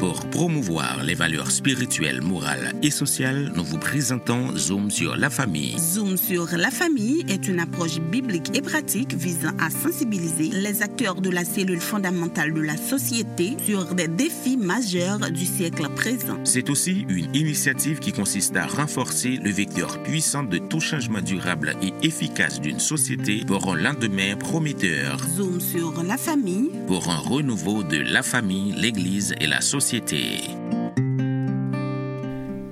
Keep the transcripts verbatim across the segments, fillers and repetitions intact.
Pour promouvoir les valeurs spirituelles, morales et sociales, nous vous présentons Zoom sur la famille. Zoom sur la famille est une approche biblique et pratique visant à sensibiliser les acteurs de la cellule fondamentale de la société sur des défis majeurs du siècle présent. C'est aussi une initiative qui consiste à renforcer le vecteur puissant de tout changement durable et efficace d'une société pour un lendemain prometteur. Zoom sur la famille. Pour un renouveau de la famille, l'Église et la société.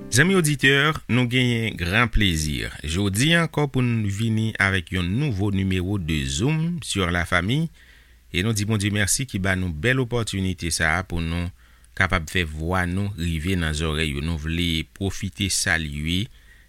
Zanmi oditè, nou genyen gran plezi jodi ankò pou n vini avèk yon nouvo nimewo de Zoom sur la famille. E nou di Bondye mèsi ki ba nou bèl opòtinite sa a pou nou kapab fè vwa nou rive nan zòrèy yo. Nou vle pwofite salye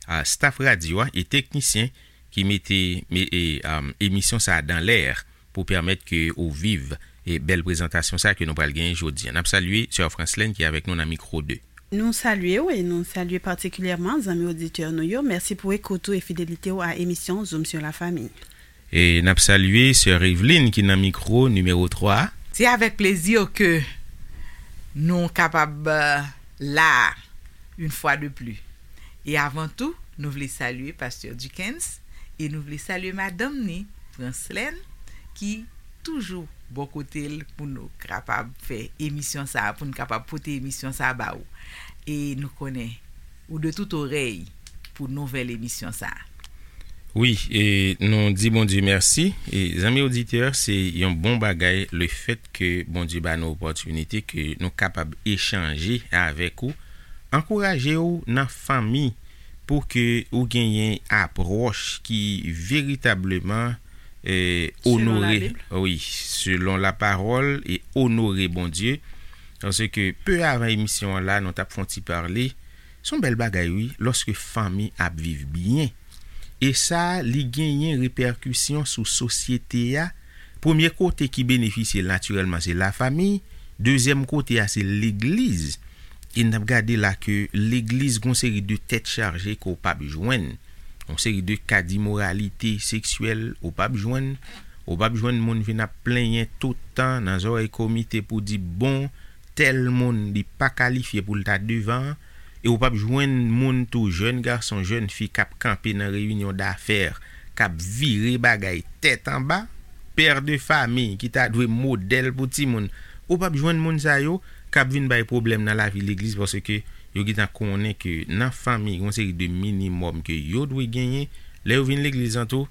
a staff radyo a e teknisyen ki mete me- e, um, emisyon sa a dan lè pou pèmèt ke ou viv e bèl prezantasyon sa a ke nou pral genyen jodi a. N ap salye sè Franslèn ki avèk nou nan mikwo de. Nou salye w e nou salye patikilyèman zanmi oditè nou yo. Mèsi pou ekout ou e fidelite w a emisyon Zoom sur la famille. E n ap salye sè Eveline ki nan mikwo nimewo twa. Se avèk plezi ke nou kapab euh, la une fois de plus. E avan tou, nou vle salye pastè Dickens e nou vle salye madanm ni, Franslèn, ki toujou bò kote l pou nou kapab fè emisyon sa a, pou nou kapab pote emisyon sa a ba ou. E nou konnen ou de tout orèy pou nouvèl emisyon sa a. Wi, e nou di Bondye mèsi. E zanmi oditè, se yon bon bagay le fèt ke Bondye ba nou opòtinite ke nou kapab echanje avèk ou, ankouraje w nan fanmi pou ke ou genyen apwòch ki veritableman e, Selon onore, Labib. Wi, selon lapawòl e onore Bondye. Paske pe avan emisyon an la, nou t ap fè yon ti pale. Se yon bèl bagay, wi, lòske fanmi ap viv byen. E sa, li genyen repèkisyon sou sosyete a. Premye kote ki benefisye l natirèlman, se lafanmi. Dezyèm kote a, se legliz. E n ap gade la ke legliz gon seri de tèt chaje ke w p ap jwenn. Yon seri de ka dimoralite seksyèl ou p ap jwenn. Ou p ap jwenn moun vin ap plenyen tout tan nan zòrèy komite pou di, bon, tèl moun li pa kalifye pou l ta devan an. E ou p ap jwenn moun tou, jèn gason, jèn fi k ap kanpe nan reyinyon dafè, k ap vire bagay tèt anba, pè de fami ki ta dwe modèl pou timoun. Ou p ap jwenn moun sa yo k ap vin bay pwoblèm nan lavi legliz paske yo gentan konnen ke nan fanmi, gen yon seri de minimòm ke yo dwe genyen. Lè yo vin legliz an tou,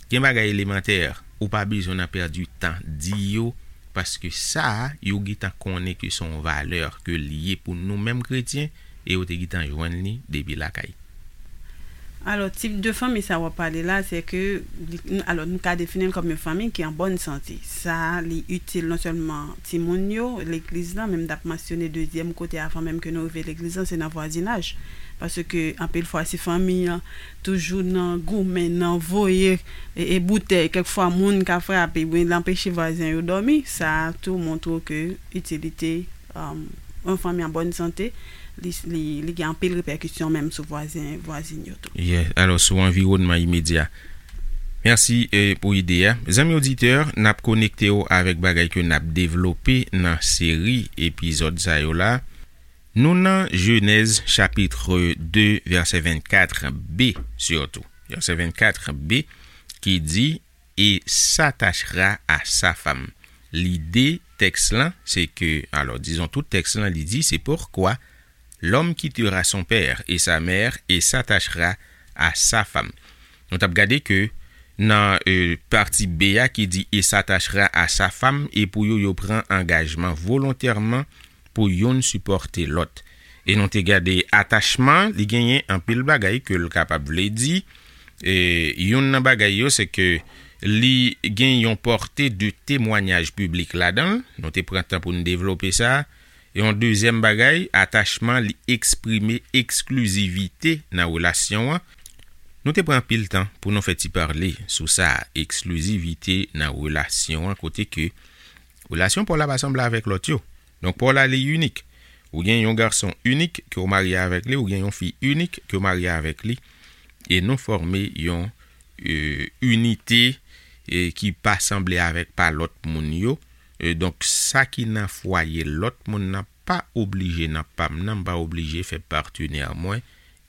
gen bagay elemantè, ou pa bezwen nan pèdi tan di yo, paske sa a, yo gentan konnen ke se yon valè ke li ye pou nou menm kretyen, e yo te gentan jwenn li depi lakay. Alò, tip de fanmi sa w ap pale la, se ke, li- alò, nou ka defini l kòm yon fanmi ki an bòn sante. Sa, li itil non sèlman timoun yo, legliz lan, men m t ap mansyone dezyèm kote avan menm ke nou rive legliz lan, se nan vwazinaj. Paske, anpil fwa, si fanmi an toujou nan goumen, nan voye e, e boutèy, kèk fwa moun ka frape, oubyen l anpeche vwazen yo dòmi, sa tou montre ke itilite um, yon fanmi an bòn sante, li, li, li gen anpil repèkisyon menm sou vwazen, vwazin yo tou. Yeah. Alò, sou anviwònman imedya. Mèsi eh, pou ide a. Zanmi oditè, n ap konekte w avèk bagay ke n ap devlope nan seri epizòd sa yo la. Nou nan Jenèz chapit de, vèsè vennkat b, sitou. Vèsè vennkat b ki di, et s'attachera à sa femme. Lide tèks lan, se ke, alò, dizon tout tèks lan, li di, c'est pourquoi l'homme quittera son père et sa mère et s'attachera à sa femme. Nou t ap gade ke nan euh, pati B a ki di et s'attachera à sa femme, e pou yo, yo pran angajman volontèman pou youn sipòte lòt. E nou te gade atachman, li genyen anpil bagay ke l kapab vle di. E youn nan bagay yo, se ke li gen yon pòte de temwanyaj piblik ladan l. Nou te pran tan pou n devlope sa. E yon dezyèm bagay, atachman, li eksprime eksklizivite nan relasyon an. Nou te pran anpil tan pou nou fè ti pale sou sa, eksklizivite nan relasyon an, kote ke relasyon pa w la pa sanble avèk lòt yo. Donk, pa w la li inik. Ou gen yon gason inik ke w marye avèk li, ou gen yon fi inik ke w marye avèk li. E nou fòme yon euh, inite euh, ki pa sanble avèk pa lòt moun yo. Euh, donk, sa ki nan fwaye lòt moun nan pa oblije, nan pa m nan, m pa oblije fè patenè mwen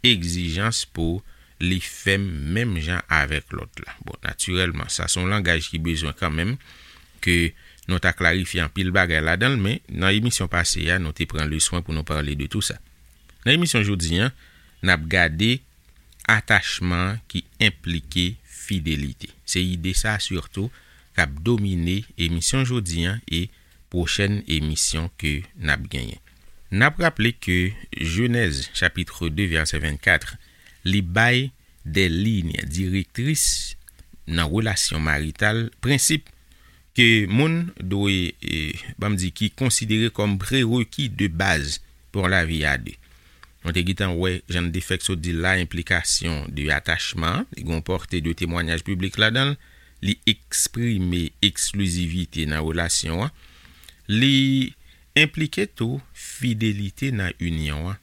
egzijans pou li fè m menm jan avèk lòt la. Bon, natirèlman, sa se yon langaj ki bezwen kanmenm ke nou ta klarifye anpil bagay ladan l, men nan emisyon pase a, nou te pran le swen pou nou pale de tou sa. Nan emisyon jodi a, n ap gade atachman ki enplike fidelite. Se ide sa sitou k ap domine emisyon jodi a e pwochèn emisyon ke n ap genyen. N ap raple ke Jenèz chapit de vèsè vennkat, li bay de liy direktris nan relasyon marital, prensip ke moun dwe, e, ban m di, ki konsidere kòm prereki de baz pou yon lavi a de. Nou te gentan wè, jan n te fèk sot di l la, enplikasyon de atachman an, li gen yon pòte de temwayaj piblik ladan l, li eksprime eksklizivite nan relasyon an, li enplike tou fidelite nan inyon an.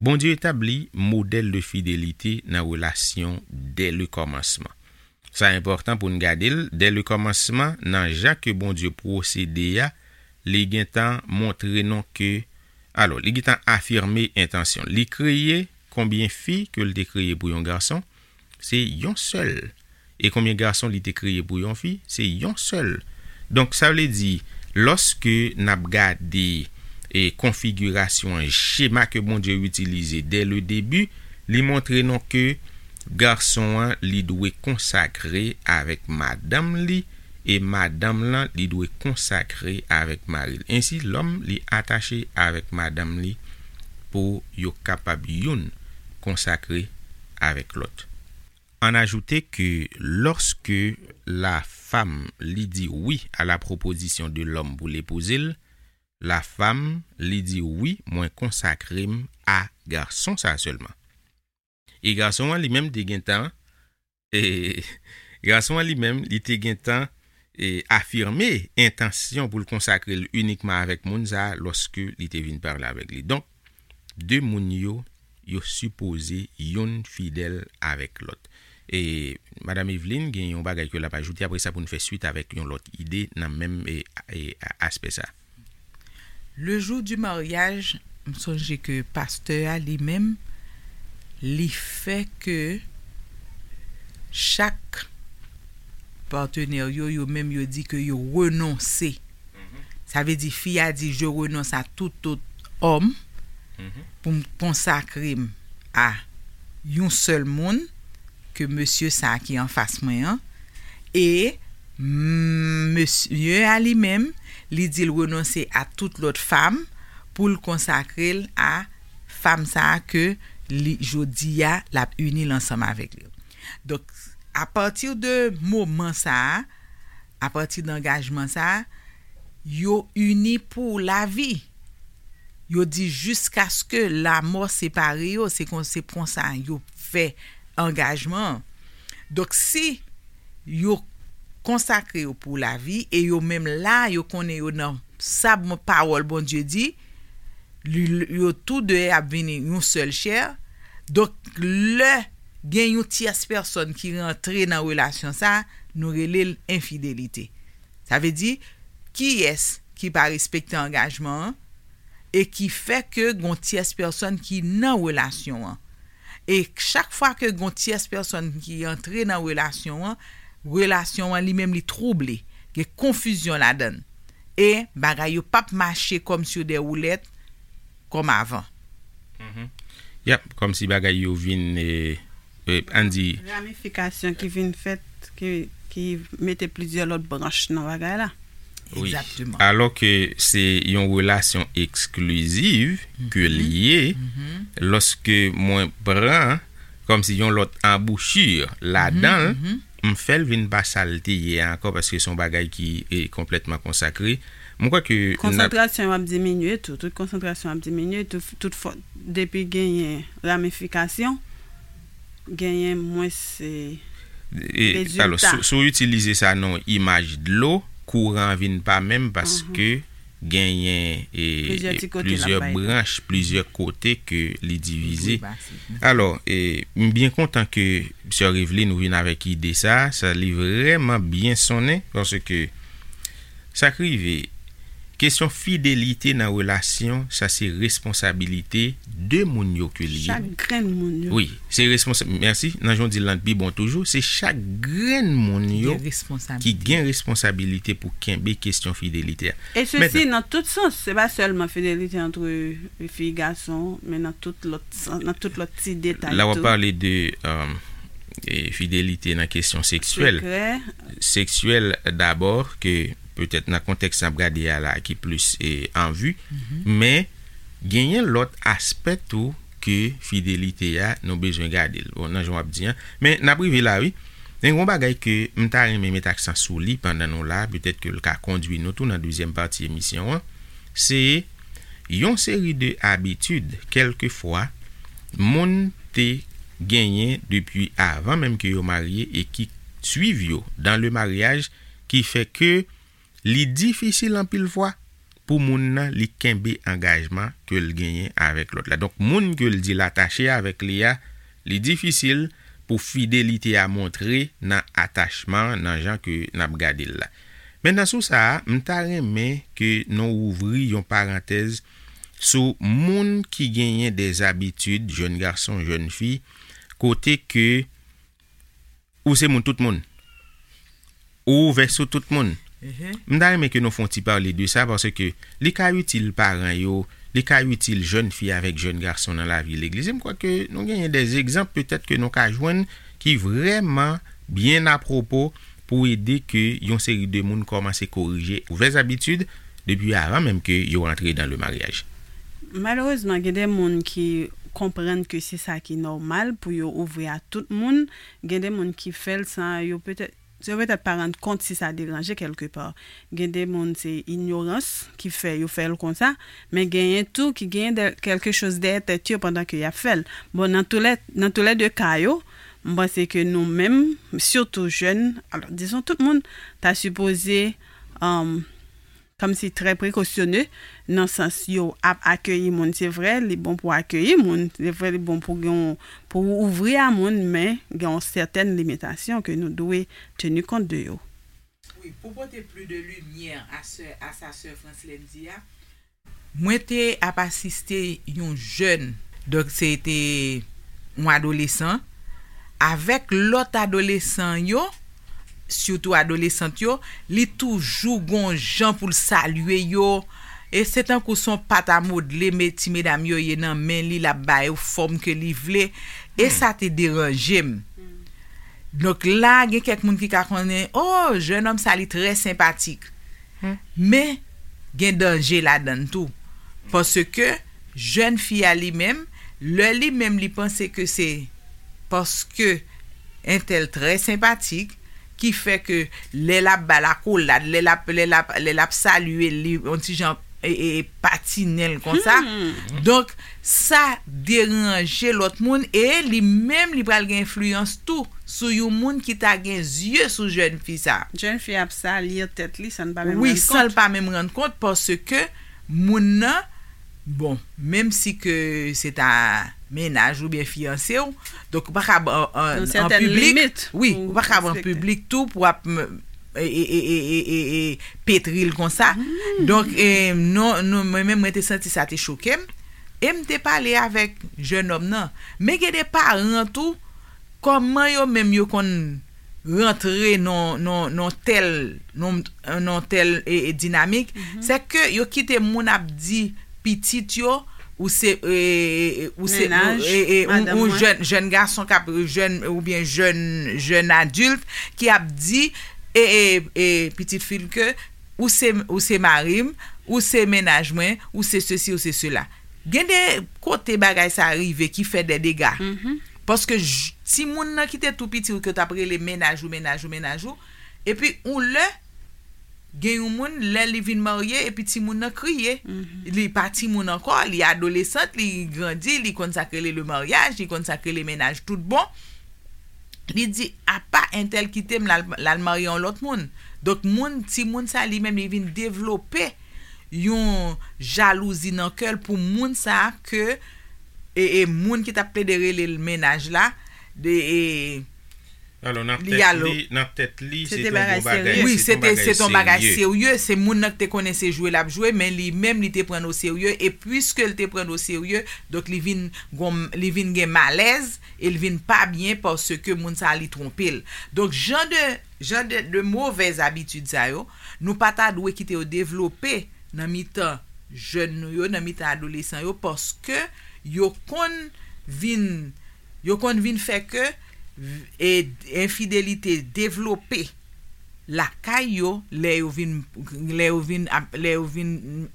Bondye etabli modèl de fidelite nan relasyon dè le kòmansman. Sa enpòtan pou n gade l, dè le kòmansman, nan jan ke Bondye pwosede a, li gentan montre nou ke, alò, li gentan afime entansyon l. Li kreye konbyen fi ke l te kreye pou yon gason, se yon sèl. E konbyen gason li te kreye pou yon fi? Se yon sèl. Donk, sa vle di, lòske n ap gade, e, konfigirasyon an, chema ke Bondye itilize dè le debi, li montre nou ke gason an, li dwe konsakre avèk madanm li, e madanm lan, li dwe konsakre avèk mari l. Ensi, lòm, li atache avèk madanm li pou yo kapab youn konsakre avèk lòt. Ann ajoute ke lòske la femme li di wi a la proposition de l'homme pou l epouze l, la femme li di wi, mwen konsakre m a gason sa a sèlman. E gason an li menm te gentan, e gason an li menm li te gentan, e afime entansyon pou l konsakre l inikman avèk moun sa a lòske li te vin pale avèk li. Donk, de moun yo, yo sipoze youn fidèl avèk lòt. E Madam Eveline gen yon bagay ke l ap ajoute, apre sa pou n fè swit avèk yon lòt ide nan menm, e, e, aspè sa. Le jour du mariage, m sonje ke pastè a li menm, li fè ke chak patenè yo, yo menm yo di ke yo renonse. Sa vle di fi a di, je renonce à tout autre homme pou m konsakre m a yon sèl moun ke mesye sa a ki anfas mwen an. E, mm, mesye a li menm, li di l renonse a tout lòt fam pou l konsakre l a fam sa a ke li, jodi a, l ap ini l ansanm avèk li. Donk, apati de moman sa a, apati de angajman sa a, yo ini pou lavi. Yo di jiskaske lamò separe yo, se kon, se konsa yo fè angajman an. Donk, si yo konsakre yo pou lavi, e yo menm la, yo konnen yo nan sa bon pawòl Bondye di, li, yo tou de ap vini yon sèl chè. Donk, lè gen yon tyès pèsòn ki rantre nan relasyon sa, nou rele l enfidelite. Sa vle di, kiyès ki pa respekte angajman an e ki fè ke gon tyès pèsòn ki nan relasyon an. E chak fwa ke gon tyès pèsòn ki antre nan relasyon an, relasyon an li menm li twouble, gen konfizyon ladan l. E bagay yo p ap mache kòm sur des roulettes kòm avan. Yap, kòmsi bagay yo vin, e, e, ann di, ramifikasyon ki vin fèt, ki, ki mete plizyè lòt branch nan bagay la. Wi. Egzakteman. Alò ke se yon relasyon eksklizif ke l ye, lòske mwen pran kòmsi yon lòt anbouchi ladan l, m fè l vin pa sa l te ye a ankò, paske se yon bagay ki, e, konplètman konsakre. Mwen kwè ke n ap konsantrasyon w ap diminye tou. Tout konsantrasyon w ap diminye tou. Tout fò, depi genyen ramifikasyon, genyen mwens, e, e, rezilta. Alò, si, si w itilize sa nan yon imaj dlo, kouran an vin pa menm paske genyen, e, plizyè ti kote l ap plizyè bay tou. Branch, plizyè kote ke li divize. Wi, ba, se. Alò, e, m byen kontan ke sè Eveline ou vin avèk ide sa, sa li vrèman byen sonnen, paske sa k rive, Kesyon fidelite nan relasyon, sa se responsabilite de moun yo ke li ye. Chak grenn moun yo. Wi, se responsab. Mèsi. Nan jan w di l lan pi bon toujou, se chak grenn moun yo ki gen responsabilite pou kenbe kesyon fidelite a. E sesi nan tout sans, se pa sèlman fidelite antre fi gason, men nan tout lòt sans, nan tout lòt ti detay tou. La w ap pale de, um, e fidelite nan kesyon seksyèl. Seksyèl dabò, ke petèt nan kontèks n ap gade a la ki plis e, an vi, men genyen lòt aspè tou ke fidelite a nou bezwen gade l. Bon, nan jan w ap di an. Men n ap rive la, wi. Men yon bagay ke m ta renmen met aksan sou li pandan nou la, petèt ke l ka kondwi nou tou nan dezyèm pati emisyon an, se yon seri de abitid, kèlkefwa, moun te genyen depi avan menm ke yo marye e ki swiv yo dans le mariage, ki fè ke li difisil anpil fwa pou moun nan li kenbe angajman ke l genyen avèk lòt la. Donk, moun ke l di l atache avèk li a, li difisil pou fidelite a montre nan atachman, nan jan ke n ap gade l la. Mentnan, sou sa a, m ta renmen ke nou ouvri yon parantèz sou moun ki genyen de zabitid, jèn gason, jèn fi, kote ke ou se moun tout moun. Ou ouvè sou tout moun. M ta renmen ke nou fè yon ti pale de sa, paske li ka itil paran yo, li ka itil jèn fi avèk jèn gason nan lavi legliz. E m kwè ke nou genyen de egzanp, petèt ke nou ka jwenn ki vrèman byen apwopo pou ede ke yon seri de moun kòmanse korije ouvè zabitid depi avan menm ke yo rantre dans le mariage. Malerezman, gen de moun ki konprann ke se sa ki nòmal pou yo ouvri a tout moun. Gen de moun ki fè l san yo petèt, yo petèt pa rann kont si sa deranje kèlkepa. Gen de moun se inyorans ki fè yo fè l konsa, men genyen tou ki genyen de, quelque chose dèyè tèt yo pandan ke y ap fè l. Bon, nan tou lè, nan tou lè de ka yo, m panse ke nou menm, sitou jèn, alò, dizon tout moun, ta sipoze, um, kòmsi trè prekosyone, nan sans yo ap akeyi moun. Se vre, li bon pou akeyi moun, se vre, li bon pou gen yon, pou ouvri a moun, men gen yon sètèn limitasyon ke nou dwe teni kont de yo. Wi, pou pote plis de limyè a sè, a sa sè Franslèn di a, mwen te ap asiste yon jèn, donk se te yon adolesan, avèk lòt adolesan yo, sitou adolesant yo, li toujou gon jan pou l salye yo. E se tankou se yon pat a modle, me, ti medam yo ye nan men li, l ap ba yo fòm ke li vle. E sa te deranje m. Donk la, gen kèk moun ki ka konnen, "Oh, jènòm sa, li trè senpatik." Men, gen danje ladan l tou. Paske jèn fi a li menm, lè li menm li panse ke se paske entèl trè senpatik, ki fè ke lè l ap ba l akolad, lè l ap, lè l ap, lè l ap salye l, li yon ti jan, e, e, e patinen l konsa. Donk, sa deranje lòt moun e li menm li pral gen enfliyans tou sou yon moun ki ta gen zye sou jèn fi sa. Jèn fi ap salye tèt li san l pa menm rann kont. Wi, san l pa menm rann kont, paske moun nan, bon, menm si ke se ta mennaj oubyen fiyanse w, donk ou pa ka an, an, an piblik, wi, ou pa ka an piblik tou pou ap, e, e, petri l konsa. Donk, e, non, non, mwen menm, mwen te santi sa te choke m. E m te pale avèk jènòm nan. Men gen de paran tou, kòman yo menm yo konn rantre nan, nan, nan tèl, nan, nan tèl, e, e, dinamik, se ke yo kite moun ap di pitit yo, ou se, e, e, ou se, e, e, ou, ou jèn, jèn gason k ap, jèn, oubyen jèn, jèn adilt ki ap di, e, e, e, pitit fi l ke ou se, ou se mari m, ou se mennaj mwen, ou se sesi, ou se sela. Gen de kote bagay sa rive ki fè de dega. Paske timoun nan ki te tou piti ou ke w t ap rele mennaj ou, mennaj ou, mennaj ou, epi yon lè, gen yon moun, lè li vin marye, epi timoun nan kriye. Li pa timoun ankò, li adolesant, li grandi, li konn sa k rele le maryaj, li konn sa k rele mennaj tout bon. Li di, "Apa entèl kite m, l al, l al marye yon lòt moun." Donk, moun, timoun sa, li menm, li vin devlope yon jalouzi nan kè l pou moun sa ke, e, e, moun ki t ap plede rele l mennaj la, de, e, Alò, nan tèt li, nan tèt li, se te yon bagay serye. Wi, se te, se te yon bagay serye. Se moun nan ki te konnen se jwe l ap jwe, men li menm, li te pran l oserye. E piske l te pran l oserye, donk li vin, li vin gen malèz e l vin pa byen paske moun sa a li twonpe l. Donk, jan de, jan de, de movèz abitid sa yo, nou pa ta dwe kite yo devlope nan mitan jèn nou yo, nan mitan adolesan yo, paske yo konn vin, yo konn vin fè ke, e, enfidelite devlope lakay yo lè yo vin, lè yo vin ap, lè yo vin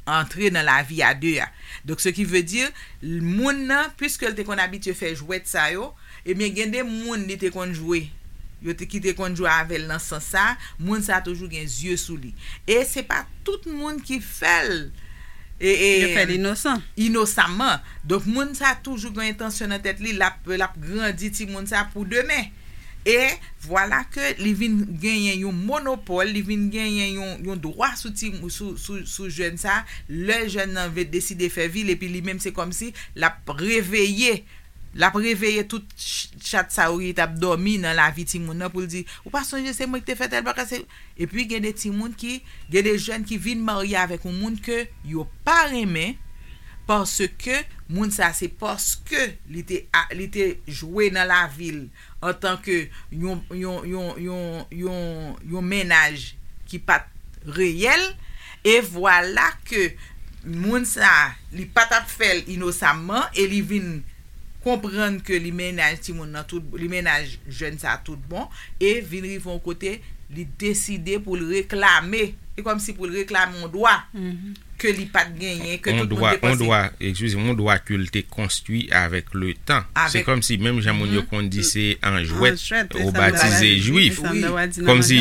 antre nan lavi a de a. Donk, ce qui veut dire, moun nan, piske l te konn abitye fè jwèt sa yo, ebyen, gen de moun li te konn jwe, yo te, ki te konn jwe avè l nan sans sa, moun sa toujou gen zye sou li. E se pa tout moun ki fè l, e, e, inosan. Inosaman. Donk, moun sa toujou gen entansyon nan tèt li, l ap, l ap grandi timoun sa pou demen. E vwala ke li vin genyen yon monopòl, li vin genyen yon, yon dwa sou ti, sou, sou, sou jèn sa, lè jèn nan ve-, deside fè vi l, epi li menm se kòmsi l ap reveye, l ap reveye tout ch-, chat sa yo ki t ap dòmi nan lavi timoun nan pou l di, "Ou pa sonje se mwen ki te fè tèl bagay, se," Epi gen de timoun ki, gen de jèn ki vin marye avèk yon moun ke yo pa renmen, paske moun sa se paske li te a, li te jwe nan lavi l antanke yon, yon, yon, yon, yon, yon mennaj ki pa t reyèl, e vwala ke moun sa, li pa t ap fè l inosaman, e li vin konprann ke li mennaj timoun nan tout, li mennaj jèn sa tout bon, e vin rive yon kote, li deside pou l reklame, e kòmsi pou l reklame yon dwa ke li pa t genyen, ke tout moun te panse. Yon dwa, yon dwa, eskize m, yon dwa ke l te konstwi avèk le tan. Se kòmsi menm jan moun yo konn di se an jwèt ou batize jwif. Kòmsi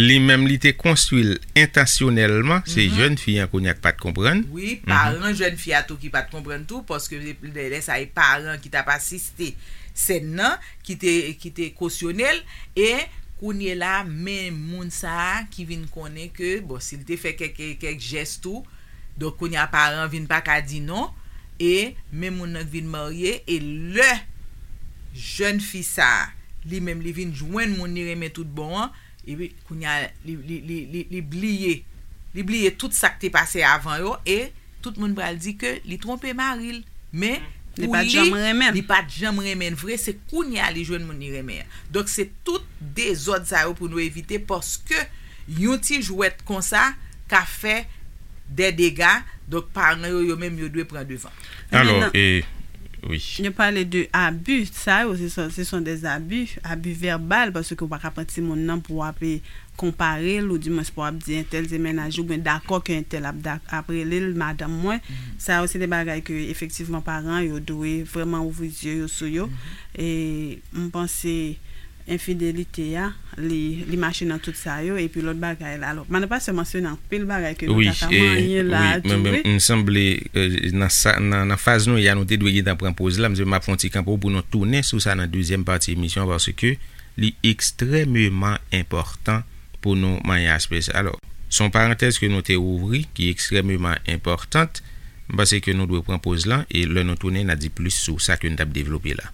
li menm li te konstwi l entansyonèlman, se jèn fi an kounye a k pa t konprann. Wi, paran jèn fi a tou ki pa t konprann tou, paske lè, lè sa e paran ki t ap asiste sèn nan, ki te, ki te kosyone l, e kounye la, men moun sa a ki vin konnen ke, bon, si l te fè kèk, kèk jès tou, donk kounye a paran vin pa ka di non, e men moun nan k vin marye, e lè jèn fi sa a, li menm li vin jwenn moun li renmen tout bon an, epi kounye a li, li, li, li, li bliye, li bliye tout sa k te pase avan yo, e tout moun pral di ke li twonpe mari l. Men pou li, li pa t janm renmen l vre, se kounye a li jwenn moun li renmen an. Donk, se tout dezòd sa yo pou nou evite, paske yon ti jwèt konsa ka fè dè dega. Donk, paran yo, yo menm, yo dwe pran devan. Alò, e, wi. Yo pale de abi, sa yo, se son, se son des abus, abus verbal, paske w pa ka pran timoun nan pou w ap, e, konpare l, oudimwens pou w ap di entèl se mennaj ou, oubyen dakò ke entèl ap, ap rele l madanm mwen. Sa yo se de bagay ke efektivman paran yo dwe vrèman ouvri zye yo sou yo. E m panse enfidelite a, li, li mache nan tout sa yo, epi lòt bagay la. Alò, madan pastè mansyone anpil bagay ke nou ta ka manyen la tou, wi. M sanble, e, nan sa, nan, nan faz nou ye a, nou te dwe gentan pran poz la, m ap fè yon ti kanpo pou nou tounen sou sa nan dezyèm pati emisyon an, paske li ekstrèmeman enpòtan pou nou manyen aspè sa. Alò, se yon parantèz ke nou te ouvri ki ekstrèmeman enpòtan. M panse ke nou dwe pran poz lan e lè nou tounen, n a di plis sou sa ke n t ap devlope la.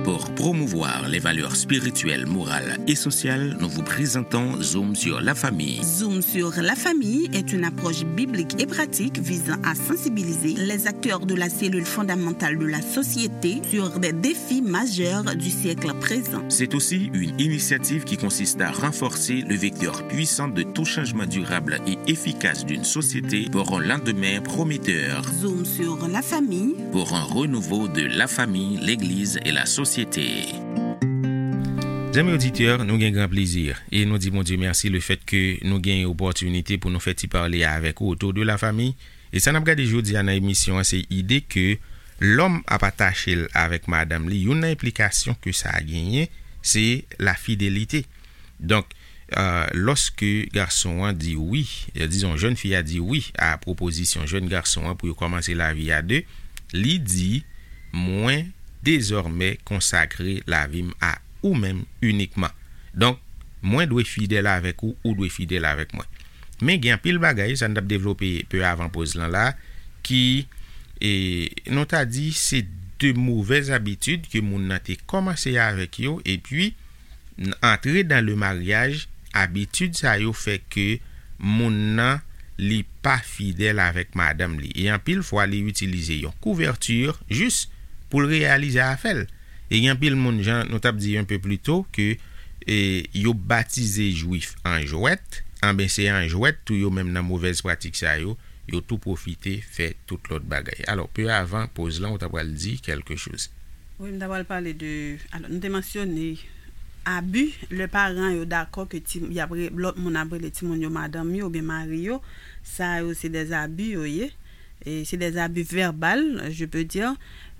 Pour promouvoir les valeurs spirituelles, morales et sociales, nous vous présentons Zoom sur la famille. Zoom sur la famille est une approche biblique et pratique visant à sensibiliser les acteurs de la cellule fondamentale de la société sur des défis majeurs du siècle présent. C'est aussi une initiative qui consiste à renforcer le vecteur puissant de tout changement durable et efficace d'une société pour un lendemain prometteur. Zoom sur la famille. Pour un renouveau de la famille, l'église et la société. Zanmi oditè, nou gen gran plezi e nou di Bondye mèsi lefèt ke nou gen opòtinite pou nou fè ti pale avèk ou otou de la fami. E sa n ap gade jodi a nan emisyon an, se ide ke lòm ap atache l avèk madanm li. Youn nan enplikasyon ke sa genyen, se lafidelite. Donk, e, lòske gason an di wi, e, dizon, jèn fi a di wi a pwopozisyon jèn gason an pou yo kòmanse lavi a de, li di, "Mwen dezòmè konsakre lavi m a ou menm inikman. Donk, mwen dwe fidèl avèk ou, ou dwe fidèl avèk mwen." Men gen anpil bagay, sa n t ap devlope pe avan poz lan la, ki, e, nou ta di se de movèz abitid ke moun nan te kòmanse avèk yo, epi n- antre dan le maryaj, abitid sa yo fè ke moun nan li pa fidèl avèk madanm li. E anpil fwa, li itilize yon kouvèti jis pou l reyalize afè l. E gen anpil moun, jan nou t ap di yon pe pli to, ke e, yo batize jwif an jwèt, anben se an jwèt tou yo menm nan movèz pratik sa yo, yo tou pwofite fè tout lòt bagay. Alò, pe avan poz lan, ou ta pral di kèlke choz. Wi, m ta pral pale de, alò, nou te mansyone abi, lè paran yo dakò ke ti, y ap re- lòt moun ap rele timoun yo madanm yo oubyen mari yo, sa yo se dè abi yo ye. E se dè abi vèbal, je peux dire.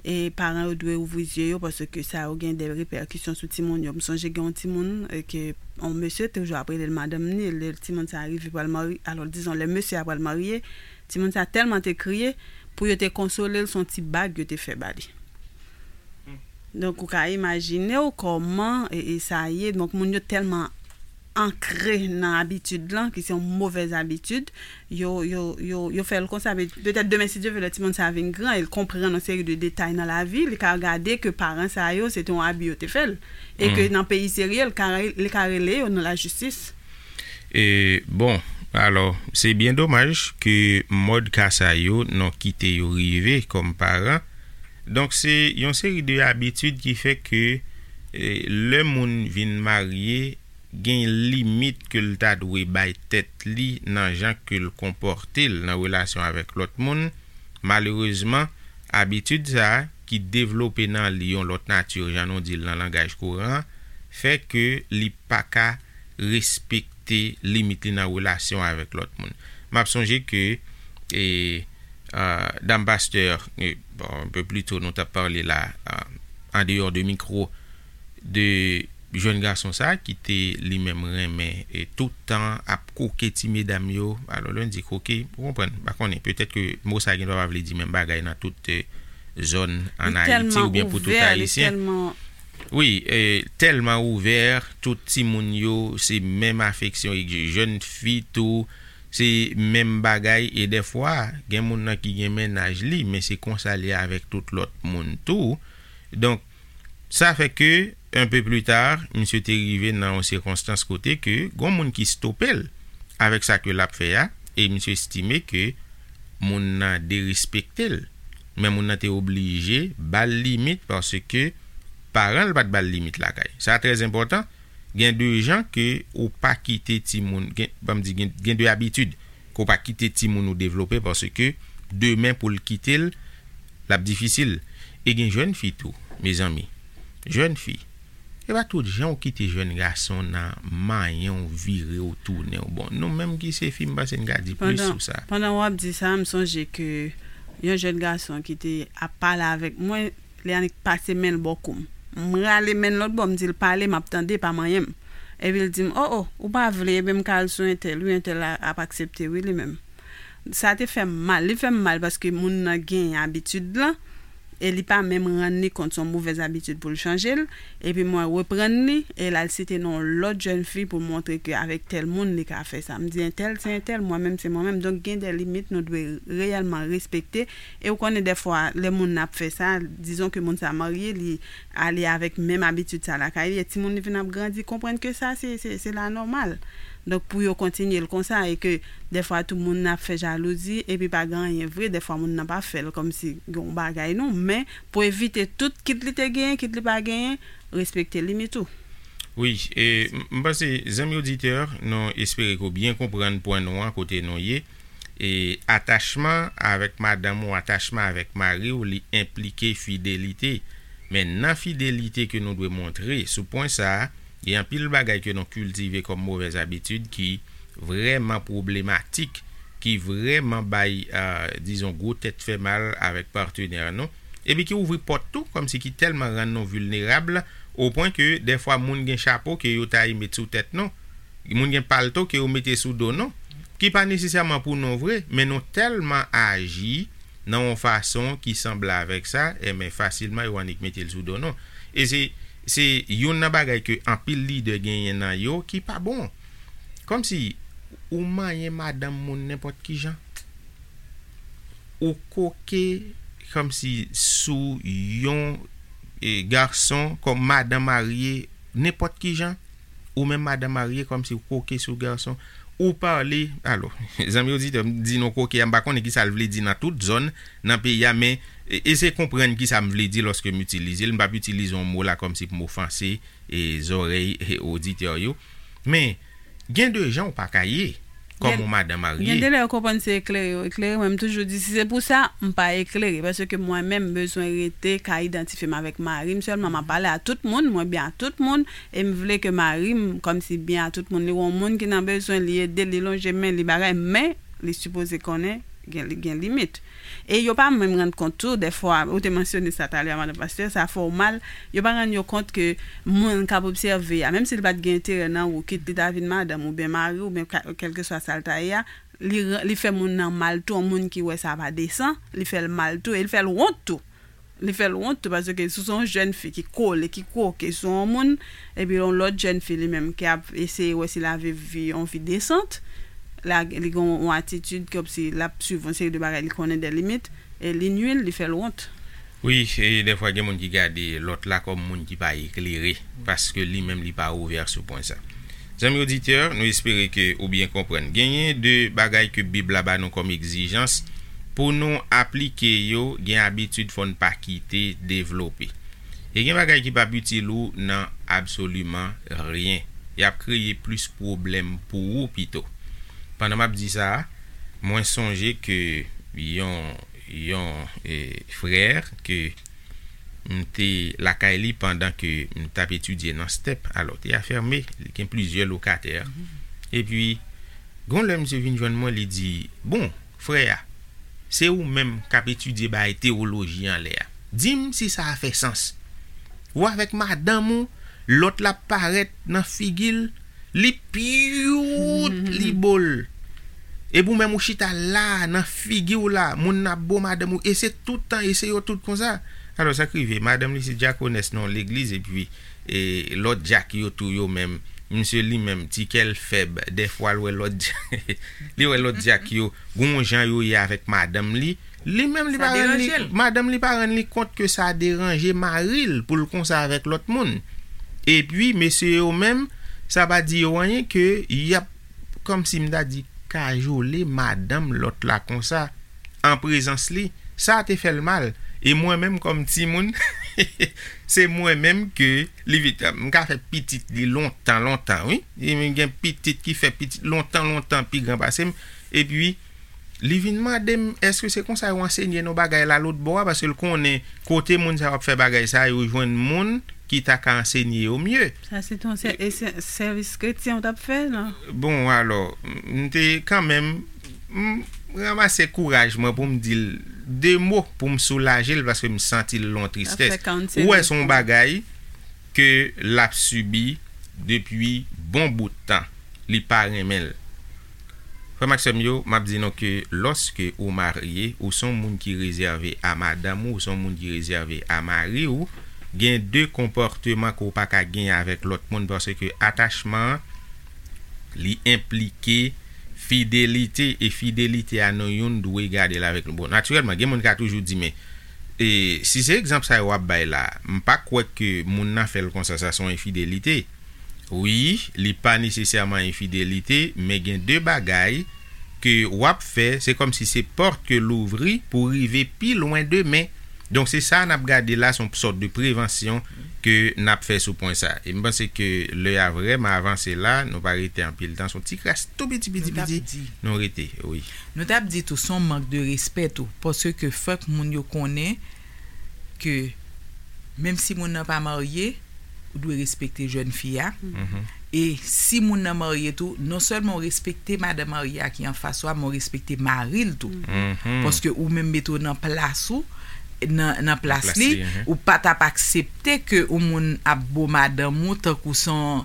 E paran yo dwe ouvri zye yo paske sa yo gen de repèkisyon sou timoun yo. M sonje gen yon timoun e, ke yon mesye toujou ap rele l madanm ni, lè timoun sa rive pral marye, alò dizon lè mesye a pral marye, timoun sa tèlman te kriye, pou yo te konsole l, se yon ti bag yo te fè ba li. Donk, ou ka imajine w kòman e, e sa ye. Donk, moun yo tèlman ankre nan abitid lan, ki se yon movèz abitid, yo, yo, yo, yo fè l konsa. Pe- Petèt demen, si Dye vle, lè timoun sa vin gran, e l konprann yon seri de detay nan lavi, li ka gade ke paran sa yo, se te yon abi yo te fè l. E ke nan peyi serye, l ka, re- li ka rele yo nan lajistis. E, bon, alò, se byen domaj ke mòd ka sa yo, nou kite yo rive kòm paran. Donk, se yon seri de abitid ki fè ke e, lè moun vin marye, gen limit ke l ta dwe bay tèt li nan jan ke l konpòte l nan relasyon avèk lòt moun. Malerezman, abitid sa a, ki devlope nan li yon lòt nati, jan nou di l nan langaj kouran an, fè ke li pa ka respekte limit li nan relasyon avèk lòt moun. M ap sonje ke e, a, dam pastè, e, bon, un peu plus tôt, nou t ap pale la, a, an deyò de mikwo, de jèn gason sa ki te li menm renmen e tout tan ap koke ti medam yo. Alò, lè n di koke, ou konprann, m pa konnen, petèt ke mo sa gen dwa pa vle di menm bagay nan tout e, zòn ann Ayiti oubyen pou tout Ayisyen. Wi, e, tèlman ouvè, tout timoun yo, se menm afeksyon, e jèn fi tou, se menm bagay, e dèfwa, gen moun nan ki gen mennaj li, men se konsa li avèk tout lòt moun tou. Donk, sa fè ke, un peu plus tard, misye te rive nan yon sikonstans kote ke gon moun ki stope l avèk sa ke l ap fè a, e misye estime ke moun nan derespekte l. Men moun nan te oblije ba l limit paske paran l pa t ba l limit lakay. Sa trè enpòtan. Gen de jan ke ou pa kite timoun, gen, ban m di, gen, gen de abitid ke w pa kite timoun ou devlope paske demen pou l kite l, l ap difisil. E gen jèn fi tou, mezanmi. Jèn fi. E pa tout jan ou kite jèn gason nan manyen w, vire w, tounen w. Bon, nou menm ki se fi, m panse n ka di plis sou sa. Pandan w ap di sa, m sonje ke yon jèn gason ki te ap pale avèk mwen, li annik pase men l bò kou m. M rale men l lòt bò, m di l, "Pale, m ap tande, pa manyen m." Epi l di m, "O, o, ou pa vle, ebyen m ka al sou entèl, wi, entèl la ap aksepte, wi, li menm." Sa te fè m mal, li fè m mal paske moun nan gen abitid lan, e li pa menm rann li kont se yon movèz abitid pou l chanje l, epi mwen reprann li, e l al site non lòt jèn fi pou l montre ke avèk tèl moun li ka fè sa. M di entèl se entèl, mwen menm se mwen menm. Donk gen de limit nou dwe reyèlman respekte, e ou konnen dèfwa lè moun nan ap fè sa, dizon ke moun sa marye, li ale avèk menm abitid sa lakay li, e timoun li vin ap grandi, konprann ke sa se, se, se la nòmal. Donk pou yo kontinye l konsa, e ke dèfwa tou moun nan ap fè jalouzi, epi pa gen anyen vre, dèfwa moun nan pa fè l kòmsi gen yon bagay non, men pou evite tout, kit li te genyen, kit li pa genyen, respekte limit ou. Wi, e m- m panse, zanmi oditè, nou espere ke w byen konprann pwen nou an kote nou ye. E atachman avèk madanm ou, atachman avèk mari w, li enplike fidelite. Men nan fidelite ke nou dwe montre sou pwen sa a, gen anpil bagay ke nou kiltive kòm movèz abitid ki vrèman pwoblematik, ki vrèman bay, a, dizon, gwo tèt fè mal avèk patnè nou, epi ki ouvri pòt tou, kòmsi ki tèlman rann nou vilnerab, o pwen ke dèfwa moun gen chapo ke yo ta ye met sou tèt nou, moun gen palto ke yo mete sou do nou, ki pa nesesèman pou nou vre, men nou tèlman aji nan yon fason ki sanble avèk sa, enben fasilman yo annik mete l sou do nou. E se, se youn nan bagay ke anpil lidè genyen nan yo ki pa bon. Kòmsi ou manyen madanm moun nenpòt ki jan. Ou koke kòmsi sou yon e, gason kòm madan marye nenpòt ki jan. ou menm madanm marye, kòmsi w koke sou gason, ou pale, alò, zanmi oditè, m di nou koke a, m pa konnen ki sa l vle di nan tout zòn, nan peyi a, men e, eseye konprann ki sa m vle di lòske m itilize l. M p ap itilize yon mo la kòmsi pou m ofanse e, zòrèy e, oditè yo. Men, gen de jan ou pa ka ye kòm yon madanm marye. Gen de lè yo konprann se eklere yo eklere. Mwen, m toujou di, si se pou sa, m pa eklere. Paske mwen menm, m bezwen rete ka idantifye m avèk mari m sèlman. M ap pale a tout moun, mwen byen a tout moun. E m vle ke mari m, kòmsi byen a tout moun, li wè yon moun ki nan bezwen, li ede, li lonje men, li bagay, men li sipoze konnen gen, li gen limit. E yo pa menm rann kont tou, dèfwa, ou te mansyone sa talè a, madan pastè, sa fè w mal, yo pa rann yo kont ke moun k ap obsève a, menm si li pa t gen enterè nan ou, kit li ta vin madanm oubyen mari w, oubyen ka- kèlkeswa sa l ta ye a, li, li fè moun nan mal tou, yon moun ki wè sa pa desan, li fè l mal tou, e li fè l wont tou. Li fè l wont tou, paske si w se yon jèn fi ki kole, ki kwoke sou yon moun, epi yon lòt jèn fi li menm ki ap eseye wè si l a viv vi, yon vi desant, la, li gen yon atitid kòmsi l ap swiv yon seri de bagay li konnen de limit, e li nui l, li fè l wont. Wi, e dèfwa gen moun ki gade lòt la kòm moun ki pa eklere, paske li menm li pa ouvè sou pwen sa. Zanmi oditè, nou espere ke ou byen konprann. Genyen de bagay ke Bib la ba nou kòm egzijans pou nou aplike yo, gen abitid fò n pa kite devlope. E gen bagay ki p ap itil ou nan absoliman ryen. Y ap kreye plis pwoblèm pou ou pito. Pandan m ap di sa a, mwen sonje ke yon, yon e, frè ke m te lakay li pandan ke m t ap etidye nan step. Alò, te afème, li gen plizyè lokatè. Epi, gon lè misye vin jwenn mwen, li di, bon, frè a, se ou menm k ap etidye bay tewoloji anlè a. Di m si sa a fè sans. Ou avèk madanm ou, lòt la parèt nan figi l, li pyout, li bo l. Epi ou menm ou chita la, nan figi w la, moun nan ap bo madanm ou, e se tout tan, e se yo tout konsa. Alò, sa k rive, madanm li se dyakonès nan yon legliz, epi e, lòt dyak yo tou yo menm, misye li menm, ti kè l fèb, dèfwa l wè lòt dyak, li wè lòt dyak yo, gon jan yo ye avèk madanm li, li menm li pa rann li, madanm li pa rann li kont ke sa deranje mari l pou l konsa avèk lòt moun. Epi, mesye yo menm, sa pa di yo anyen ke y ap, kòmsi m ta di, kajole madanm lòt la konsa, an prezans li, sa te fè l mal. E mwen menm kòm timoun, se mwen menm ke li vit. M ka fè pitit li lontan, lontan, wi. E m gen pitit ki fè pitit lontan, lontan pi gran pase m. Epi, li vin mande m, èske se konsa yo ansenye nou bagay la lòt bò a? Paske l konnen kote moun sa yo ap fè bagay sa, yo jwenn moun ki ta ka ansenye yo mye. Sa se ton sè-, e sè-, sèvis kretyen w t ap fè, non? Bon, alò, m te kanmenm, m ranmase kouraj mwen pou m di l de mo pou m soulaje l paske m santi l lon tristès. Ou wè, se yon bagay ke l ap sibi depi bon bout tan. Li pa renmen l. Frè m ak sè m yo, m ap di nou ke lòske ou marye, ou se yon moun ki rezève a madanm ou, ou se yon moun ki rezève a mari w, gen de konpòteman ke w pa ka gen avèk lòt moun, paske atachman an, li enplike fidelite, e fidelite a nou youn dwe gade l avèk nou. Bon, natirèlman, gen moun ka toujou di, men, e, si se egzanp sa yo w ap bay la, m pa kwè ke moun nan fè l konsa, sa se yon enfidelite. Wi, li pa nesesèman enfidelite, men gen de bagay ke w ap fè, se kòmsi se pòt ke l ouvri pou rive pi lwen demen. Donk, se sa n ap gade la, se yon sòt de prevansyon ke n ap fè sou pwen sa. E m panse ke lè a vrèman avanse la, nou pa rete anpil tan, se yon ti kras tou piti, piti, piti, nou rete, wi. Nou t ap di tou, se yon mank de respè tou, paske fòk moun yo konnen ke menm si moun nan pa marye, ou dwe respekte jèn fi a. E si moun nan marye tou, non sèlman ou respekte madanm marye a ki anfas ou a, men ou respekte mari l tou. Paske ou menm mete w nan plas ou, nan, nan plas li, ou pa t ap aksepte ke yon moun ap bo madanm ou tankou se yon,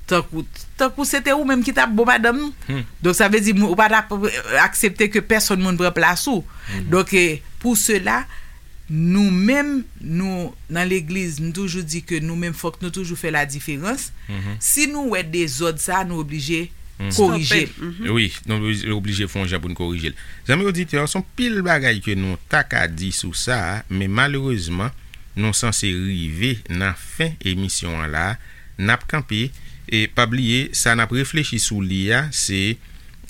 tankou, tankou se te ou menm ki t ap bo madanm ou. Donk, sa vle di, ou pa t ap aksepte ke pèsonn moun pran plas ou. Donk, e, pou sela, nou menm, nou, nan legliz, nou toujou di ke nou menm, fòk nou toujou fè ladiferans. Si nou wè dezòd sa, nou oblije korije l. Wi, nou oblije fè yon jan pou n korije l. Zanmi oditè, se yon pil bagay ke nou ta ka di sou sa, men malerezman, nou sanse rive nan fen emisyon an la. N ap kanpe, E pa bliye, sa n ap reflechi sou li a, se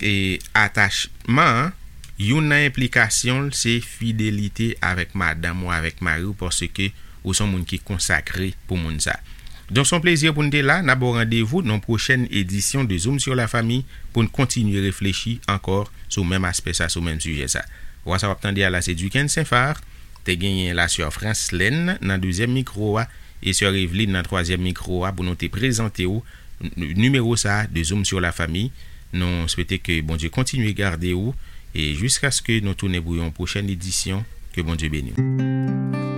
e atachman an, youn nan enplikasyon l se fidelite avèk madanm ou avèk mari w, paske ou se yon moun ki konsakre pou moun sa. Donk, se yon plezi pou n te la. N ap ba w randevou nan yon pwochèn edisyon de Zoom sur la famille pou n kontinye reflechi ankò sou menm aspè sa, sou menm sijè sa. Vwa sa w ap tande a la, se Duquesne Saint-Phar, te genyen la sè Franslèn nan dezyèm mikwo a, e sè Eveline nan twazyèm mikwo a pou nou te prezante w n- nimewo sa a de Zoom sur la famille. Nou swete ke Bondye kontinye gade w e jiskaske nou tounen pou yon pwochèn edisyon, ke Bondye beni w.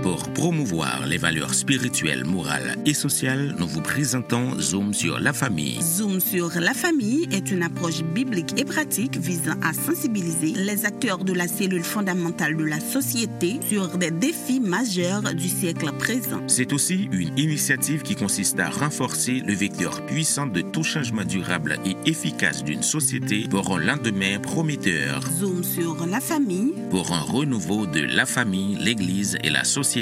Pour promouvoir les valeurs spirituelles, morales et sociales, nous vous présentons Zoom sur la famille. Zoom sur la famille est une approche biblique et pratique visant à sensibiliser les acteurs de la cellule fondamentale de la société sur des défis majeurs du siècle présent. C'est aussi une initiative qui consiste à renforcer le vecteur puissant de tout changement durable et efficace d'une société pour un lendemain prometteur. Zoom sur la famille. Pour un renouveau de la famille, l'Église et la société.